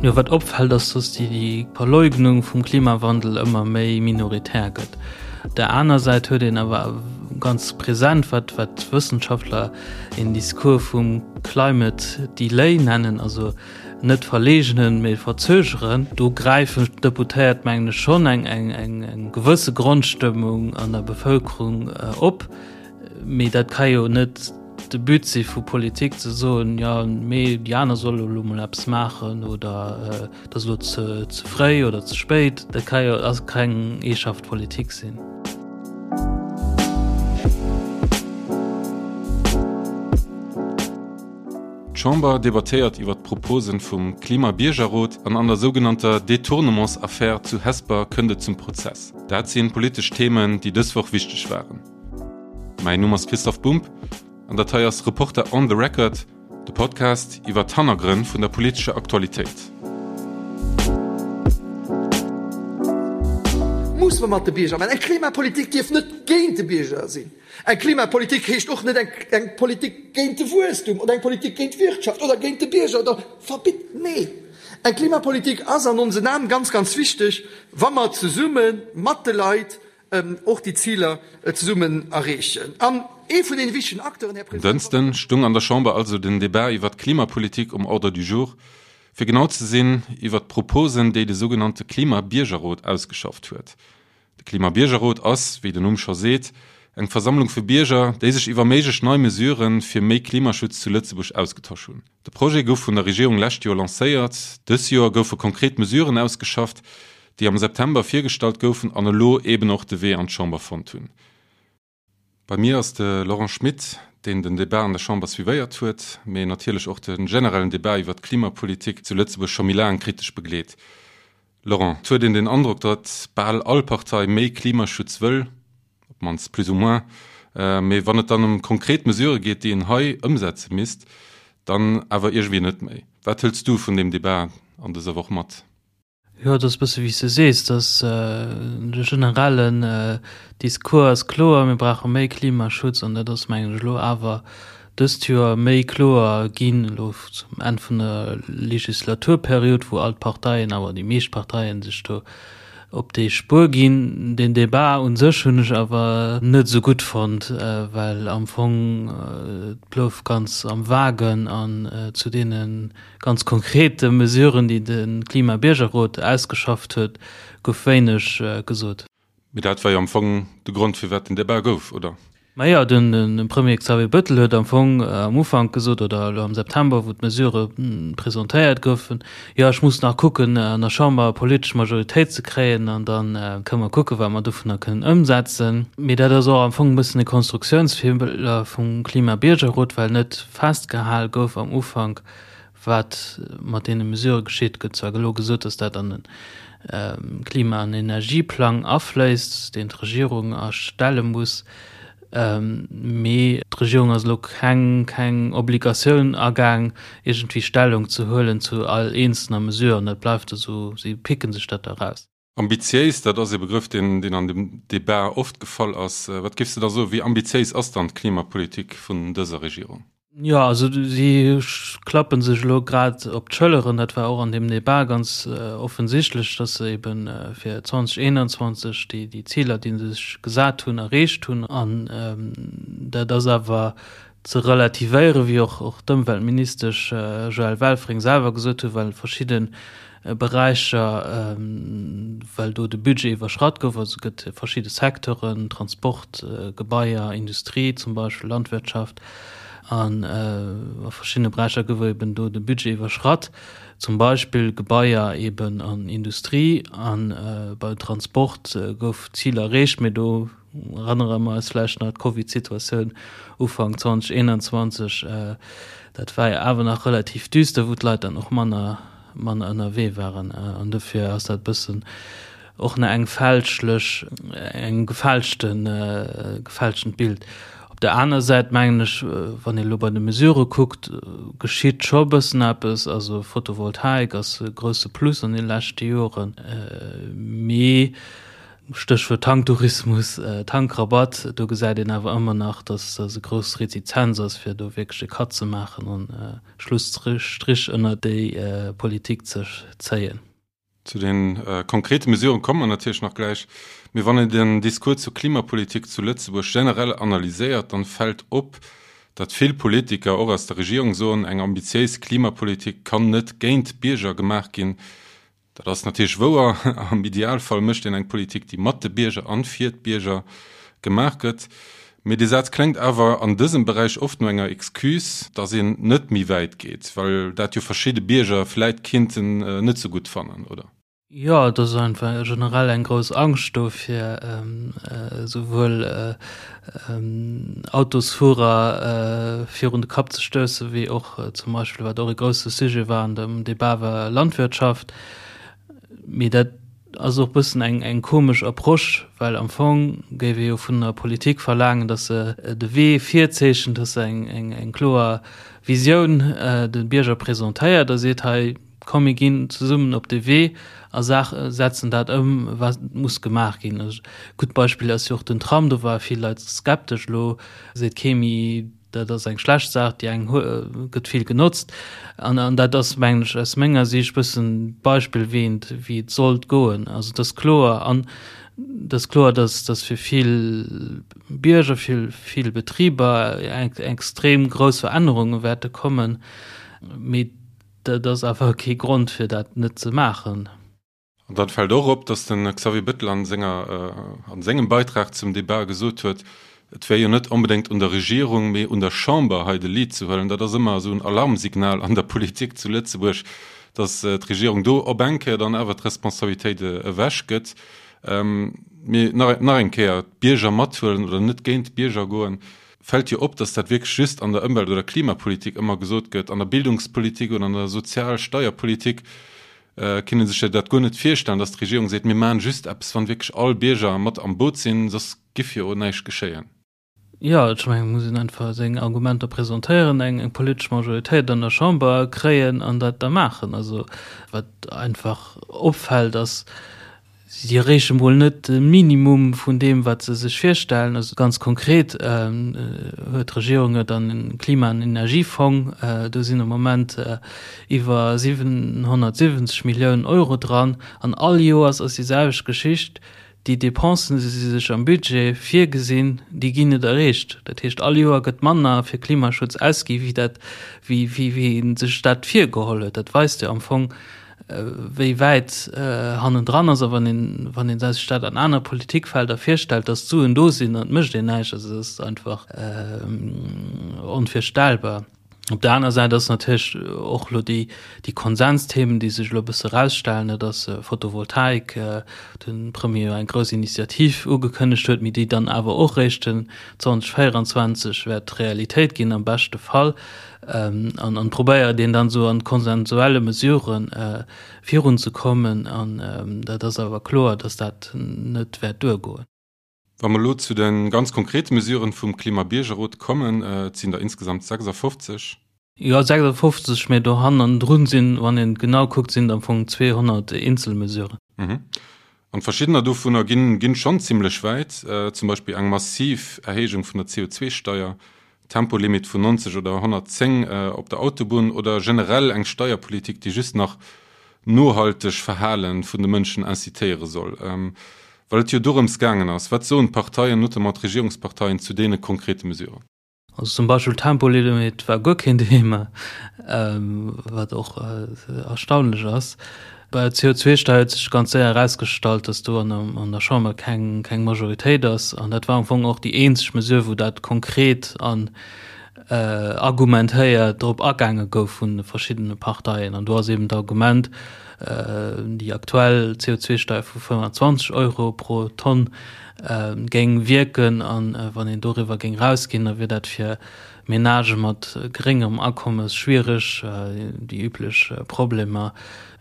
Jo, wat opfält, ass, dass déi Verleugnung vum Klimawandel ëmmer méi minoritär gëtt. Op der aner Säit huet een awer ganz present, wat wat d'Wëssenschaftler een Discours vum Climate Delay nennen, also net verleegnen, mee verzögeren. Do gräifen d'Deputéiert, mengen ech, schonn eng eng eng gewësse Grondstëmmung an der Bevëlkerung op. Mee dat ka jo net de But si vu Politik ze soen, jo mee déi aner solle elo mol eppes maachen oder et ass elo ze ze fréi oder ze spéit. Dat ka jo ass keng Eeschaft Politik sinn. D'Chamber debattéiert iwwer d'Proposen vum Klima-Biergerrot an an der sougenannter Detournements-Affär zu Hesper kënnt et zum Prozess. Dat sinn politesch Themen, déi dës Woch wichteg waren. Mäin Numm ass Christoph Bumb an dat hei ass Reporter on the Record, de Podcast iwwer d'Hannergrënn vun der politescher Aktualitéit. Muss mer mat de Bierger maachen. Eng Klimapolitik dierf net géint de Bierger sinn. Eng Klimapolitik heescht och net eng Politik géint de Wuesstum oder eng Politik géint d'Wirtschaft oder géint de Bierger oder verbitt. Nee, eng Klimapolitik ass an onsen Aen ganz, ganz wichteg, wa mer zesumme mat de Leit och déi Ziler zesummen erreechen. An ee vun deene wichtegen Acteuren, Här En President. Dënschden stung an der Chamber also den Debat iwwert d'Klimapolitik um Ordre du jour, fir genau ze sinn iwwert d'Proposen, déi de sougenannte Klima-Biergerrot ausgeschafft huet. De Klima-Biergerrot ass, wéi den Numm scho seet, eng Versammlung vu Bierger, déi sech iwwer méiglech nei Mesurë fir méi Klimaschutz zu Lëtzebuerg ausgetosch hunn. De Projet gouf vun der Regierung lescht Joer lancéiert. Dës Joer goufe konkret Mesuren ausgeschafft, déi am September virgestallt goufen an elo eben och de Wee an d'Chamber fonnt hunn. Bei mir ass de Laurent Schmit, deen den Debat an der Chamber suivéiert huet, mee natierlech och de generellen Debat iwwer d'Klimapolitik zu Lëtzebuerg scho méi laang kritesch begleet. Laurent, et huet een den Androck, datt bal all Partei méi Klimaschutz wëll, op d'mannst plus ou moins, mee wann et dann ëm konkret Mesurë geet, déi een hei ëmsetze misst, dann awer iergendwéi net méi. Wat hëls du vun deem Debat an dëser Woch mat? Jo, et ass e bësse wéi s de sees, dass de generellen Discours ass kloer, mir brauche méi Klimaschutz an dat ass, mengen ech, elo awer dëst Joer méi kloer ginn, elo zum Enn vun der Legislaturperiod, wou all d'Parteien, awer déi meescht Parteien sech do op déi Spuer ginn. Den Debat u sech hunn ech awer net esou gutt fonnt, well am Fong et blouf ganz am Vagen an zu deene Ganz konkrete Mesuren, déi de Klima-Biergerrot ausgeschafft huet, gouf wéineg gesot. Mee dat war jo am Fong de Grond, firwat den Debat gouf, oder? Majo, de Premier Xavier Bettel huet am Fong am Ufank gesot, oder elo am September, wou d'Mesurë presentéiert goufen, Jo, ech muss nach kucken, an der Chamber e politesch Majoritéit ze kréien, an da kënne mer kucken, wat mer dovunner kënnen ëmsetzen. Mee dat ass och am Fong e bëssen e Konstruktiounsfeeler vum Klima-Biergerrot, well net festgehal gouf am Ufank, wat mat deene Mesurë geschitt. Et gëtt zwar elo gesot, datt dat an de Klima an Energieplang afléisst, deen d'Regierung erstelle muss, mee d'Regierung ass elo keng keng Obligatioun agaang, iergendwéi Stellung ze huelen zu all eenzelner Mesure an dat bleift esou, si picken sech dat da raus. Ambitiéis, dat ass ee Begrëff, deen deen an dem Debat oft gefall ass. Wat géifs de da soen, wéi ambitiéis ass dann d'Klimapolitik vun dëser Regierung? Jo, also si klappe sech elo grad op d'Schëlleren. Dat war och an deem Debat ganz offensichtlech, datt se ebe fir 2021 déi déi Ziler, déi se sech gesat hunn, erreecht hunn. An dat ass awer ze relativéieren, wéi och och d'Ëmweltministesch Joëlle Welfring selwer gesot huet, well verschidde Beräicher, well do de Budget iwwerschratt gouf, also et gëtt verschidde Secteuren, Transport, Gebaier, Industrie zum Beispill, Landwirtschaft, an a verschiddene Beräicher gouf eben do de Budget iwwerschratt, zum Beispill Gebaier eben an Industrie, a beim Transport gouf d'Zil erreecht, mee do Erënnere mer eis vläicht nach d'Covid-Situatioun Ufank 2021, dat war jo awer nach relativ düster, wou d'Leit dann och manner, manner ënnerwee waren. An dofir ass dat e bëssen och nach eng fälschlech, eng gefälschten, gefälschtent Bild. Op der aner Säit mengen ech, wann ee elo bei de Mesurë kuckt, geschitt scho e bëssen eppes. Also Photovoltaik ass e grousse Plus an de leschte Joren, mee. Stéchwuert Tanktourismus, Tankrabatt, do gesäit een awer ëmmer nach, dass e grouss Retizenz ass, fir do wierklech e Cut ze maachen an e Schlusstrich ënner déi Politik ze zéien. Zu de konkrete Mesuren komme mer natierlech nach gläich. Mee wann een den Discours zur Klimapolitik zu Lëtzebuerg generell analyséiert, dann fält op, datt vill Politiker, och aus der Regierung, soen, eng ambitiéis Klimapolitik kann net géint d'Bierger gemaach ginn. Dat ass natierlech wouer. Am Idealfall mécht een eng Politik, déi mat de Bierger an fir d'Bierger gemaach gëtt. Mee dee Saz kléngt awer an dësem Beräich oft no enger Excuse, datt een net méi wäit geet, well dat jo verschidde Bierger vläit kinnten net sou gutt fannen, oder? Jo, et ass einfach generell eng grouss Angscht do fir esouwuel Autosfuerer virun de Kapp ze stoussen, wéi och zum Beispill, wat och e grousse Sujet war an dem Debat, war Landwirtschaft. Mee dat ass och e bëssen eng, eng komesch Approche, well am Fong géif ee jo vun der Politik verlaangen, datt se de Wee virzeechent, datt se eng, eng, eng kloer Visioun de Bierger presentéiert a seet, hei, Komm mir ginn zesummen op de Wee a setzen dat ëm, wat muss gemaach ginn. E gutt Beispill ass jo och den Tram. Do ware vill Leit skeptesch. Elo seet kee méi, dat ass eng schlecht Saach, déi eng gëtt vill genotzt. An dat ass, mengen ech, aus menger Siicht e bëssen d'Beispill, wéi een, wéi et sollt goen. Also et ass kloer an et ass kloer, datt datt fir vill Bierger, fir vill Betriber extrem grouss Verännerunge wäerte kommen. Mee Dat ass awer kee Grond fir dat net ze maachen. An dann fält och op, datt de Xavier Bettel an senger, an sengem Beitrag zum Debat gesot huet, et wär jo net onbedéngt un der Regierung, mee un der Chamber hei de Lead ze huelen. Dat ass ëmmer esou en Alarmsignal an der Politik zu Lëtzebuerg, datt d'Regierung do op eng Kéier dann awer d'Responsabilitéit ewech gëtt. Mee nach, nach eng Kéier, d'Bierger mathuelen oder net géint d'Bierger goen, Fält jo op, dass dat wierklech just an der Ëmwelt oder Klimapolitik ëmmer gesot gëtt. An der Bildungspolitik oder an der Sozial Steierpolitik kinne sech jo dat guer net virstellen, dass d'Regierung seet, mir maachen just eppes, wann wierklech all Bierger mat am Boot sinn, soss giff jo näischt geschéien. Jo, ech mengen, et muss een einfach seng Argumenter presentéieren, eng politesch Majoritéit an der Chamber kréien an dat da maachen. Also wat einfach opfält, ass, Si erreeche mol net de Minimum vun deem, wat se sech virstellen. Also ganz konkret huet d'Regierung jo dann e Klima an Energiefong, do sinn am Moment iwwer 770 Milliounen Euro dran. An all Joers ass déi selwecht Geschicht, déi Dépensen, déi si sech am Budget virgesinn, déi ginn net erreecht. Dat heescht, all Joer gëtt manner fir Klimaschutz ausgi wéi dat, wéi ee sech dat virgeholl huet. Dat weist jo am Fong, wéi wäit hannendran ass a wann een, wann een sech dat an aner Politikfelder virstellt, datt d'Suen do sinn an et mécht een näischt, also dat ass einfach onvirstellbar. Op der aner Säit ass natierlech och elo déi, déi Konsensthemen, déi sech elo e bësse erausstellen, dat ass Photovoltaik, de Premier jo eng grouss Initiativ ugekënnegt huet, mee déi dann awer och réischt den 2024 wäert Realitéit ginn am beschte Fall. An an probéiert een dann esou an konsensuelle Mesuren virun ze kommen. An dat ass awer kloer, datt dat net wäert duergoen. Wa mer elo zu de ganz konkrete Mesuren vum Klimabiergerrot kommen, et sinn der insgesamt 56. Jo, 56, mä do hannendrun sinn, wann een genau kuckt, sinn et am Fong 200 Eenzelmesuren. An verschiddener dovunner ginn ginn schonn zimlech wäit, zum Beispill eng massiv Erhéijung vun der CO2-Steier, Tempolimit vun 90 oder 110 op der Autobunn oder generell eng Steierpolitik, déi just nach nohalteg Verhale vun de Mënschen incitéiere soll. Well et jo dorëms gaangen ass, wat soen d'Parteien, notamment d'Regierungsparteien, zu deene konkrete Mesuren? Also zum Beispill Tempolimit war guer keen Thema, wat och erstaunlech ass. Bei der CO2-Steier huet sech ganz séier erausgestallt, datt do an der Chamber keng keng Majoritéit ass. An dat war am Fong och déi eenzeg Mesure, wou dat konkret an argumentéiert drop agaange gouf vun de verschiddene Parteien. An do ass eben d'Argument, déi aktuell CO2-Steier vu 25 Euro pro Tonn géing wierken an wann een doriwwer géing rausginn, da wier dat fir Menagë mat geréngerem Akommes schwiereg, déi üblech Problemer.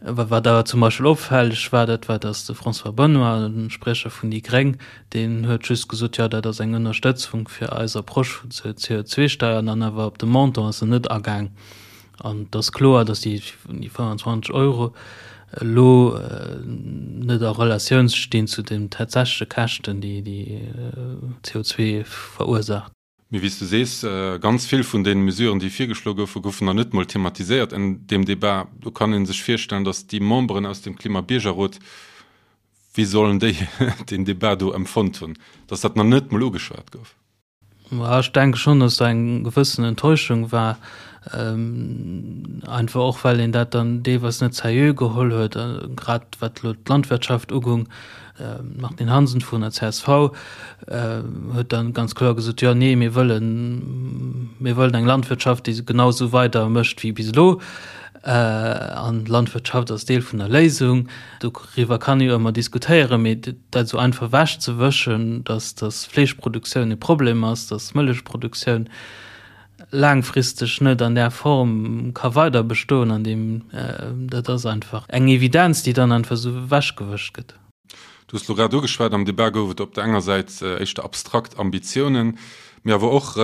Wat awer zum Beispill opfälleg war, dat war, datt de François Benoy, de Spriecher vun déi Gréng, deen huet just gesot, jo dat ass eng Ënnerstëtzung fir eis Approche vun zur CO2-Steier an dann awer op de Montant ass en net agaang. An et ass kloer, datt déi 25 Euro. elo net a Relatioun stinn zu den tatsächleche Käschten, déi déi CO2 verursaacht. Mee wéi s du sees, ganz vill vun deene Mesuren, déi virgeschloe goufen, goufen nach net mol thematiséiert en deem Debat. Do kann ee sech virstellen, datt déi Memberen aus dem Klimabiergerrot, wéi sollen déi deen Debat do empfonnt hunn, datt dat nach net mol ugeschwat gouf? Ech denke schonn, datt do eng gewëssen Enttäuschung war, einfach och well een dat dann deelweis net seriö geholl huet, grad wat elo d'Landwirtschaft ugung. D'Martine Hansen vun der csv huet dann ganz kloer gesot, jo nee, mir wëllen, mir wëllen eng Landwirtschaft, déi genau esou weider mécht wéi bis elo. An d'Landwirtschaft ass Deel vun der Léisung. Doriwwer kann ee jo ëmmer diskutéieren, mee dat esou einfach ewechzewëschen, datt datt Fleeschproduktioun e Problem ass, datt Mëllechproduktioun laangfristeg net an där Form ka weider bestoen an deem, dat ass einfach eng Evidenz, déi dann einfach esou ewechgewëscht gëtt. Du hues elo grad ugeschwat, am Debat gouf et op der enger Säit éischter abstrakt Ambitiounen, mee awer och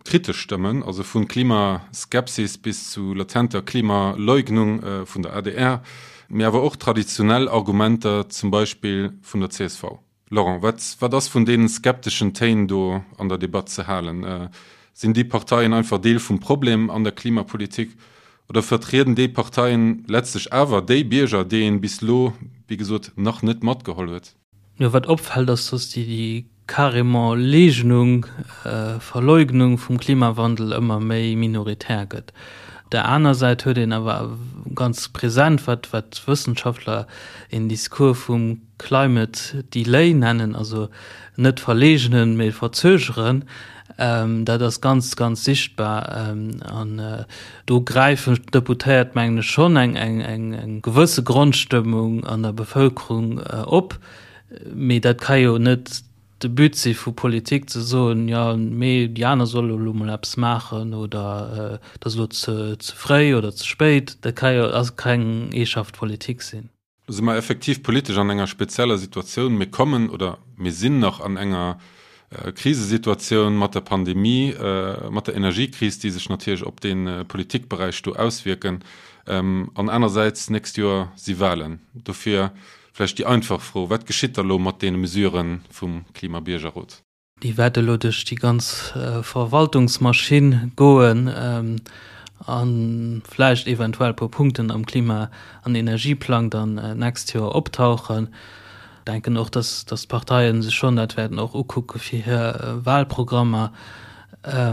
kritesch Stëmmen, also vu Klimaskepsis bis zu latenter Klimaleugnung vun der adr, mee awer och traditionell Argumenter, zum Beispill vun der csv. Laurent, wat, wat ass vun deenen skepteschen Téin do an der Debatt ze halen? Sinn déi Parteien einfach Deel vum Problem an der Klimapolitik oder vertrieden déi Parteien letztlech awer déi Bierger, déi een bis lo, wéi gesot, nach net matgeholl huet? Jo, wat opfält, ass, dass déi, déi carrément Leegnung, Verleugnung vum Klimawandel ëmmer méi minoritär gëtt. Op der aner Säit huet een awer ganz present, wat, wat Wëssenschaftler een Discours vum Climate Delay nennen, also net verleegnen, mee verzögeren, dat ass ganz, ganz sichtbar. An do gräifen d'Deputéiert, mengen ech, schonn eng gewësse Grondstëmmung an der Bevëlkerung op. Mee dat ka jo net de But si vu Politik, ze soen, jo, mee déi aner solle elo mol eppes maachen oder et ass elo ze fréi oder ze spéit. Dat ka jo keng eeschaft Politik sinn. Do si mer effektiv politesch an enger spezieller Situatioun. Mir kommen oder mir sinn nach an enger Krisesituatioun mat der Pandemie, mat der Energiekris, déi sech natierlech op dee Politikberäich do auswierken. An anersäits, d'nächst Joer si Wahlen. Dofir vläicht déi einfach Fro, Wat geschitt da lo mat deene Mesurë vum Klimabiergerrot? Déi wäert elo duerch déi ganz Verwaltungsmaschinn goen a vläicht eventuell e puer Punkten am Klima an Energieplang dann d'nächst Joer optauchen. Ech denken och, dass d'Parteien sech schonn dat wäerten och ukucke fir hir Wahlprogrammer.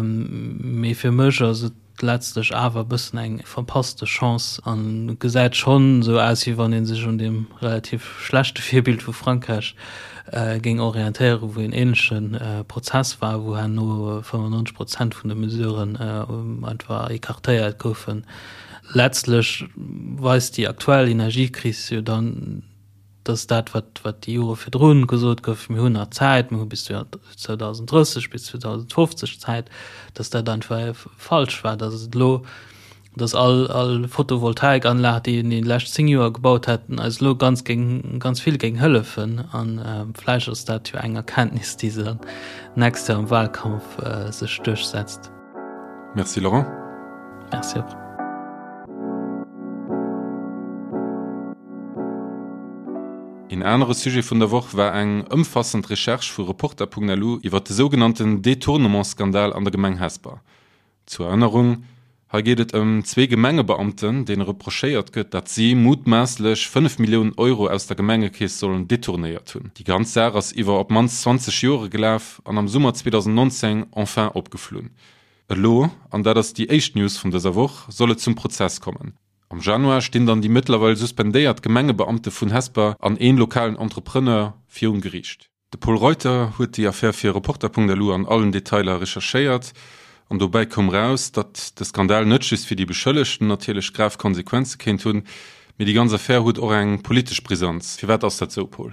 Mee fir mech ass et letztlech awer e bëssen eng verpasste Chance an et gesäit schonn esou aus, wéi wann ee sech un deem relativ schlechte Virbild vu Frankräich géing orientéieren, wou een ähnleche Prozess war, wou herno 95 Prozent vun de Mesuren einfach écartéiert goufen. Letztlech weist déi aktuell Energiekris jo dann, dass dat, wat, wat déi Jore virdrun gesot gouf, mir hunn nach Zäit, mir hu bis 2030, bis 2050 Zäit, dass dat einfach falsch war, dass et elo, dass all, all Photovoltaikanlag, déi een déi lescht 10 Joer gebaut hätten, eis elo ganz géing, ganz vill géing hëllefen. A vläicht ass dat jo eng Erkenntnis, déi se dann d'nächst Joer am Wahlkampf sech duerchsetzt. Merci Laurent. Merci och. Een anere Sujet vun der Woch war eng ëmfassend Recherche vu Reporter.lu iwwer de sougenannten Detournement-Skandal an der Gemeng Hesper. Zur Erënnerung, Hei geet et ëm zwee Gemengebeamten, deene reprochéiert gëtt, datt si mutmaasslech 5 Milliounen Euro aus der Gemengekeess sollen detournéiert hunn. Déi ganz Saach ass iwwer op d'mannst 20 Jore gelaf an am Summer 2019 enfin opgeflunn. Elo, an dat ass déi éischt News vun dëser Woch, soll et zum Prozess kommen. Am Januar stinn dann déi mëttlerweil suspendéiert Gemengebeamte vun Hesper an een lokalen Entrepreneur virum Geriicht. De Pol Reuter huet déi Affär fir Reporter.lu an allen Detailer recherchéiert an dobäi koum raus, datt de Skandal net just fir déi Beschëllegten natierlech grav Konsequenze kéint hunn, mee déi ganz Affär huet och eng politesch Brisanz. Firwat ass dat sou, Pol?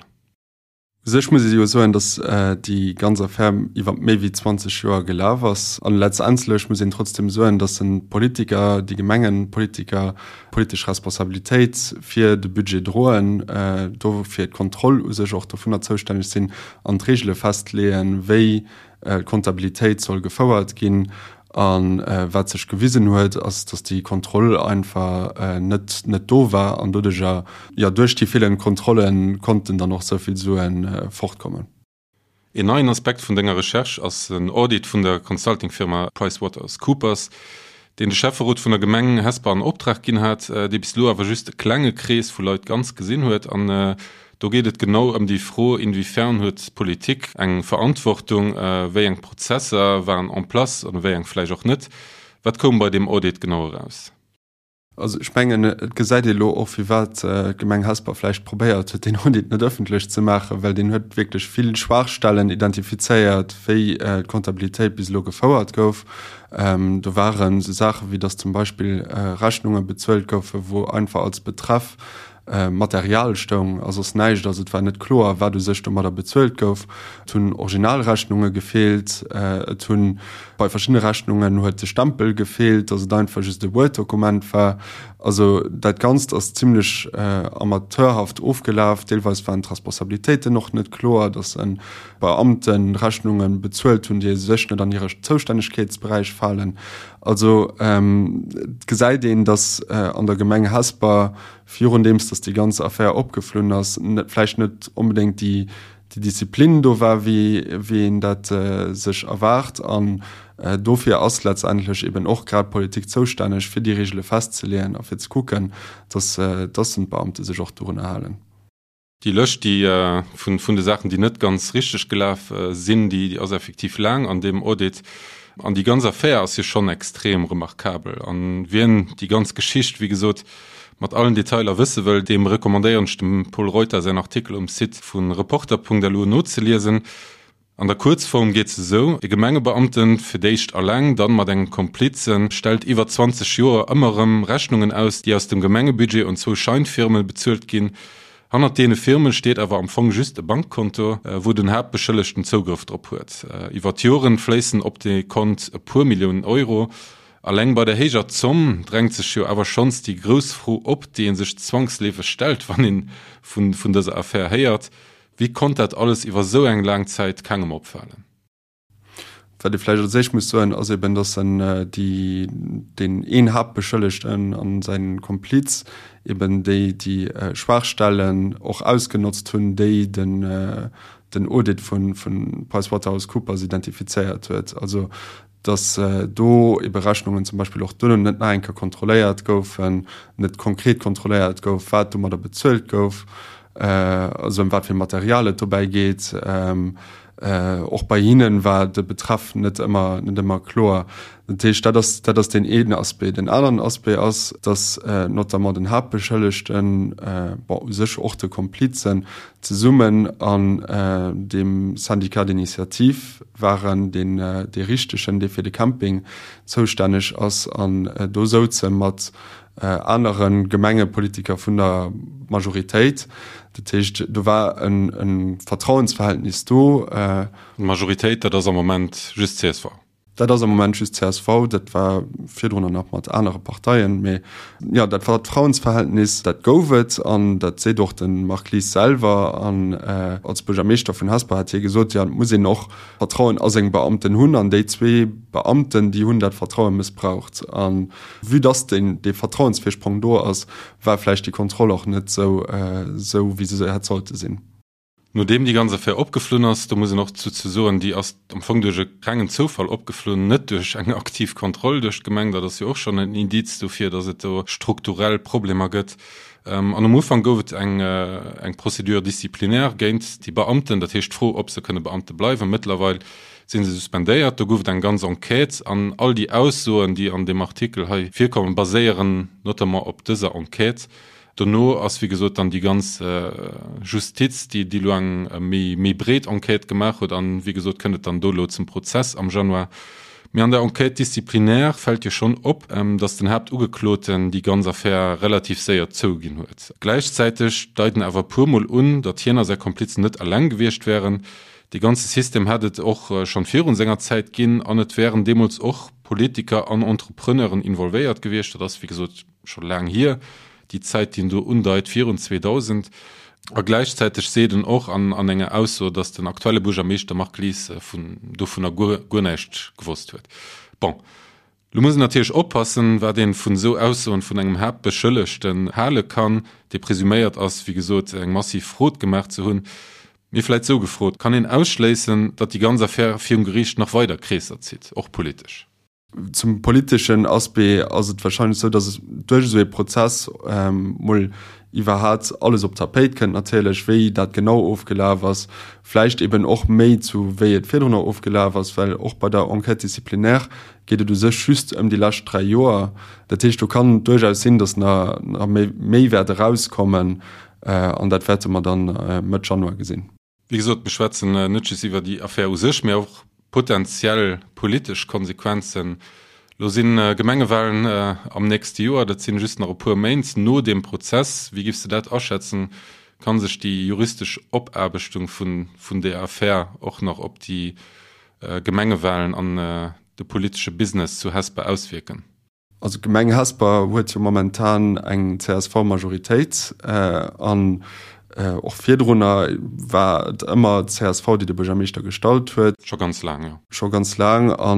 U sech muss ee jo soen, datt déi ganz Affär iwwer méi wéi 20 Joer gelaf ass. An letztendlech muss een trotzdem soen, datt de Politiker, déi Gemengenpolitiker politesch Responsabilitéit fir de Budget droen, do fir d'Kontroll u sech och dovunner zoustänneg sinn an d'Regele festleeën, wéi d'Kontabilitéit soll gefouert ginn. A wat sech gewisen huet, ass, datt déi Kontroll einfach net net do war an doduercher, jo, duerch déi feelend Kontrolle konnten dann och esou vill Sue fortkommen. Een neien Aspekt vun denger Recherche ass en Audit vun der Consultingfirma PricewaterhouseCoopers, deen de Schäfferot vun der Gemeng Hesper an Optrag ginn hat, dee bis elo awer just e klenge Krees vu Leit ganz gesinn huet. An do geet et genau ëm déi Fro, Inwiefern huet d'Politik eng Verantwortung, wéi eng Prozesser waren en place an wéi eng vläicht och net? Wat koum bei deem Audit genau eraus? Also ech mengen, et gesäit ee elo och, firwat d'Gemeng Hesper vläicht probéiert huet, deen Audit net ëffentlech ze maachen, well deen huet wierklech vill Schwaachstellen identifizéiert, wéi d'Comptabilitéit bis elo gefouert gouf. Do waren esou Saache wéi, datt zum Beispill Rechnunge bezuelt goufen, wou einfach als Betreff Material stoung a soss näischt. Also et war net kloer, wat u sech domadder bezuelt gouf. Et hunn Originalrechnunge gefeelt, et hunn bei verschiddene Rechnungen huet de Stempel gefeelt, datt et einfach just e Word-Dokument war. Also dat Ganzt ass zimmlech amateurhaft ofgelaf. Deelweis waren d'Responsabilitéiten och net kloer, datt Beamte Rechnunge bezuelt hunn, déi u sech net an hire Zoustännegkeetsberäich falen. Also et gesäit een, datt an der Gemeng Hesper, virundeems datt déi ganz Affär opgeflunn ass, net vläicht net onbedéngt déi Disziplin do war, wéi een dat sech erwaart. An dofir ass letztendlech eben och grad d'Politik zoustänneg, fir déi Reegele festzeleeën a fir ze kucken, datt d'Beamte sech och dorunner halen. Déi Lëscht, déi vun de Saachen, déi net ganz richteg gelaf sinn, déi ass effektiv laang an deem Audit. An déi ganz Affär ass jo schonn extrem remarkabel. An wien déi ganz Geschicht, wéi gesot, mat allen Detailer wësse wëll, deem recommandéieren ech dem Pol Reuter säin Artikel um Site vu Reporter.lu nozeliesen. An der Kuerzform geet se esou, E Gemengebeamten, fir d'éischt alleng, dann mat engem Komplizen, stellt iwwer 20 Joer ëmmer erëm Rechnungen aus, déi aus dem Gemengebudget un zwou Scheinfirme bezuelt ginn. Hannert deene Firme steet awer am Fong just e Bankkonto, wou den Haaptbeschëllegten Zougrëff drop huet. Iwwer d'Joren fléissen op dee Kont e puer Milliounen Euro. Alleng bei der héijer Zomm drängt sech jo awer schonns déi grouss Fro op, déi ee sech zwangsleefeg stellt, wann ee vun dëser Affär héiert, Wéi konnt dat alles iwwer esou eng laang Zäit kengem opfalen? Wat ee vläicht als éischt muss soen, ass eben, datt en déi, deen een Haaptbeschëllegten an säin Kompliz eben déi, déi Schwaachstellen och ausgenotzt hunn, déi den, den Audit vu PricewaterhouseCoopers identifizéiert huet. Also dass do ebe Rechnungen zum Beispill och duerno net nach eng Kéier kontrolléiert goufen, net konkret kontrolléiert gouf, wat domadder bezuelt gouf, also ëm wat fir Material et dobäi geet. Och bei hinne war de Betreff net ëmmer, net ëmmer kloer. Dat heescht, dat ass, dat ass deen een Aspect. Den aneren Aspect ass, dass notamment den Haaptbeschëllegten, bon, u sech och de Komplizen, zesummen an deem Syndicat d'initiative waren, deen dee richtegen, dee fir de Camping zoustänneg ass, an do souze mat anere Gemengepolitiker vun der Majoritéit. Dat heescht, do war e Vertrauensverhältnis do. D'Majoritéit, dat ass am Moment just csv. Dat ass am Moment just csv, dat war virdrunner nach mat anere Parteien, mee jo, dat Vertrauensverhältnis, dat gouf et an dat seet och de Marc Lies selwer. An als Buergermeeschter vun Hesper hat hie gesot, jo, et muss een och Vertrauen a seng Beamten hunn an déi zwee Beamten, déi hunn dat Vertraue mëssbraucht. A vue dass deen, dee Vertrauensvirsprong do ass, war vläicht déi Kontroll och net esou, esou wéi se hätt sollte sinn. Nodeem déi ganz Affär opgeflunn ass, do muss een och dozou soen, déi ass am Fong duerch e rengen Zoufall opgeflunn, net duerch eng aktiv Kontroll duerch d'Gemeng, dat ass jo och schonn en Indiz dofir, datt et do strukturell Problemer gëtt. An um Ufank gouf et eng eng Procédure disciplinaire géint déi Beamten, dat heescht d'Fro, ob se kënne Beamte bleiwen. Mëttlerweil si se suspendéiert. Do gouf et eng ganz Enquête an all déi Aussoen, déi an deem Artikel hei virkommen, baséieren notamment op dëser Enquête. Dono ass wéi gesot dann déi ganz Justiz, déi déi elo eng méi méi breet Enquête gemaach huet an wéi gesot kënnt et dann do elo zum Prozess am Januar. Mee an der Enquête disciplinaire fält jo schonn op, datt den Haaptugekloten déi ganz Affär relativ séier zouginn huet. Gläichzäiteg deiten awer e puer Mol un, datt hien a säi Komplizen net eleng gewiescht wären. Dee ganze System hätt et och schonn virun senger Zäit ginn an et wären deemools och Politiker an Entrepreneuren involvéiert gewiescht. Dat ass wéi gesot scho laang hier, déi Zäit, déi en do undeit, virun 2000. A gläichzäiteg seet en och an an enger Ausso, datt den aktuelle Buergermeeschter Marc Lies vun dovunner guer guer näischt gewosst huet. Bon. Lo muss een natierlech oppassen, wat een vun esou Aussoen vun engem Haaptbeschëllegten hale kann, dee presuméiert ass, wéi gesot, eng massiv Frod gemaach ze hunn. Mee vläit sou gefrot, Kann een ausschléissen, datt déi ganz Affär virum Geriicht nach weider Kreesser zitt, och politesch? Zum politeschen Aspect ass et wahrscheinlech esou, datt duerch esou ee Prozess mol iwwerhaat alles op d'Tapéit kënnt natierlech, wéi dat genau ofgelaf ass, vläicht eben och méi zu wéi et virdrunner ofgelaf ass, well och bei der Enquête disciplinaire geet et u sech just ëm déi lescht 3 Joer. Dat heescht, do kann duerchaus sinn, datt nach méi wäert erauskommen an dat wäerte mer dann Mëtt Januar gesinn. Wéi gesot, mir schwätzen net just iwwer déi Affär u sech, mee och potenziell politesch Konsequenzen. Lo si Gemengewalen am nächste Joer, dat sinn just nach e puer Méint no deem Prozess. Wéi giffs de dat aschätzen? Kann sech déi juristesch Opaarbechtung vun där Affär och nach op déi Gemengewalen an de politesche Business zu Hesper auswierken? Also d'Gemeng Hesper huet jo momentan eng CSV-Majoritéit an och virdrunner war et ëmmer d'CSV, déi de Buergermeeschter gestallt huet. Scho ganz laang, jo. Scho ganz laang. A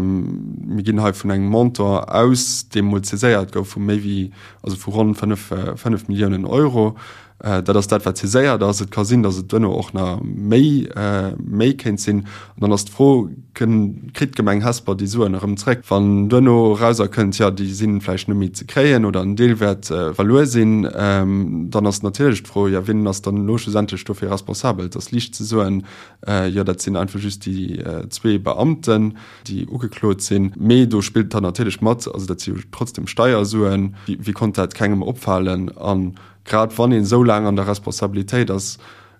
mir ginn hei vun engem Montant aus, dee mol saiséiert gouf, vu méi wéi, also vu ronn 5, 5 Milliounen Euro. Dat ass dat, wat saiséiert ass. Et ka sinn, datt et duerno och nach méi, méi kéint sinn. An dann ass d'Fro, Kënn, kritt d'Gemeng Hesper déi Suen erëm zréck, wann duerno erauserkënnt, jo, déi si vläicht net méi ze kréien oder en Deel wäert verluer sinn? Dann ass natierlech d'Fro, jo, wien ass dann elo schlussendlech dofir responsabel? Et ass liicht ze soen, jo, dat sinn einfach just déi zwee Beamten, déi ugeklot sinn. Mee do spillt dann natierlech mat, also dat si jo trotzdem Steiersuen, wéi konnt dat kengem opfalen? An Grad wann een esou laang an der Responsabilitéit ass,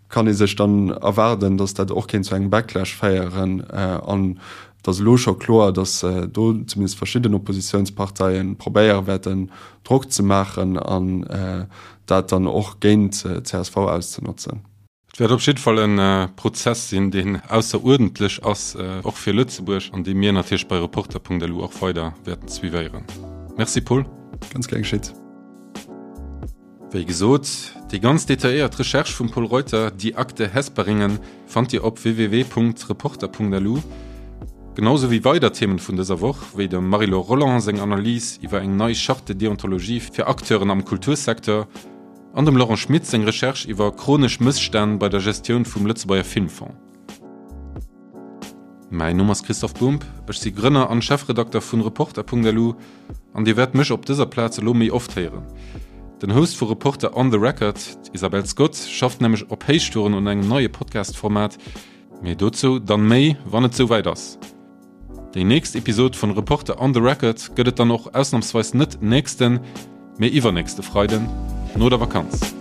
kann ee sech dann erwaarden, datt dat och kéint zu engem Backlash féieren. An et ass elo scho kloer, datt do zumindest verschidden Oppositiounsparteie probéiere wäerten, Drock ze maachen an dat dann och géint d'CSV auszenotzen. Et wäert op jidde Fall e Prozess sinn, deen ausseruerdentlech ass, och fir Lëtzebuerg, an dee mir natierlech bei Reporter.lu och weider wäerten suivéieren. Merci Paul. Ganz gär geschitt. Wéi gesot, déi ganz detailléiert Recherche vum Pol Reuter, Die Akte Hesperingen, fannt Dir op www.reporter.lu, genau sou wéi weider Themen vun dëser Woch, wéi dem Marie-Laure Rolland seng Analys iwwer eng nei Charte de déontologie fir Acteuren am Kultursecteur an dem Laurent Schmit seng Recherche iwwer chronesch Mësstänn bei der Gestioun vum Lëtzebuerger Filmfong. Mäin Numm ass Christoph Bumb, ech si Grënner an Chefredakter vun Reporter.lu an dir wäert mech op dëser Plaz elo méi oft héieren. Den Host vu Reporter on the Record, d'Isabel Scott, schafft nämlech op Héichtouren un engem neie Podcast-Format, mee dozou dann méi, wann et souwäit ass. Déi nächst Episod vun Reporter on the Record gëtt et dann och ausnamsweis net nächsten, mee iwwernächste Freiden no der Vakanz.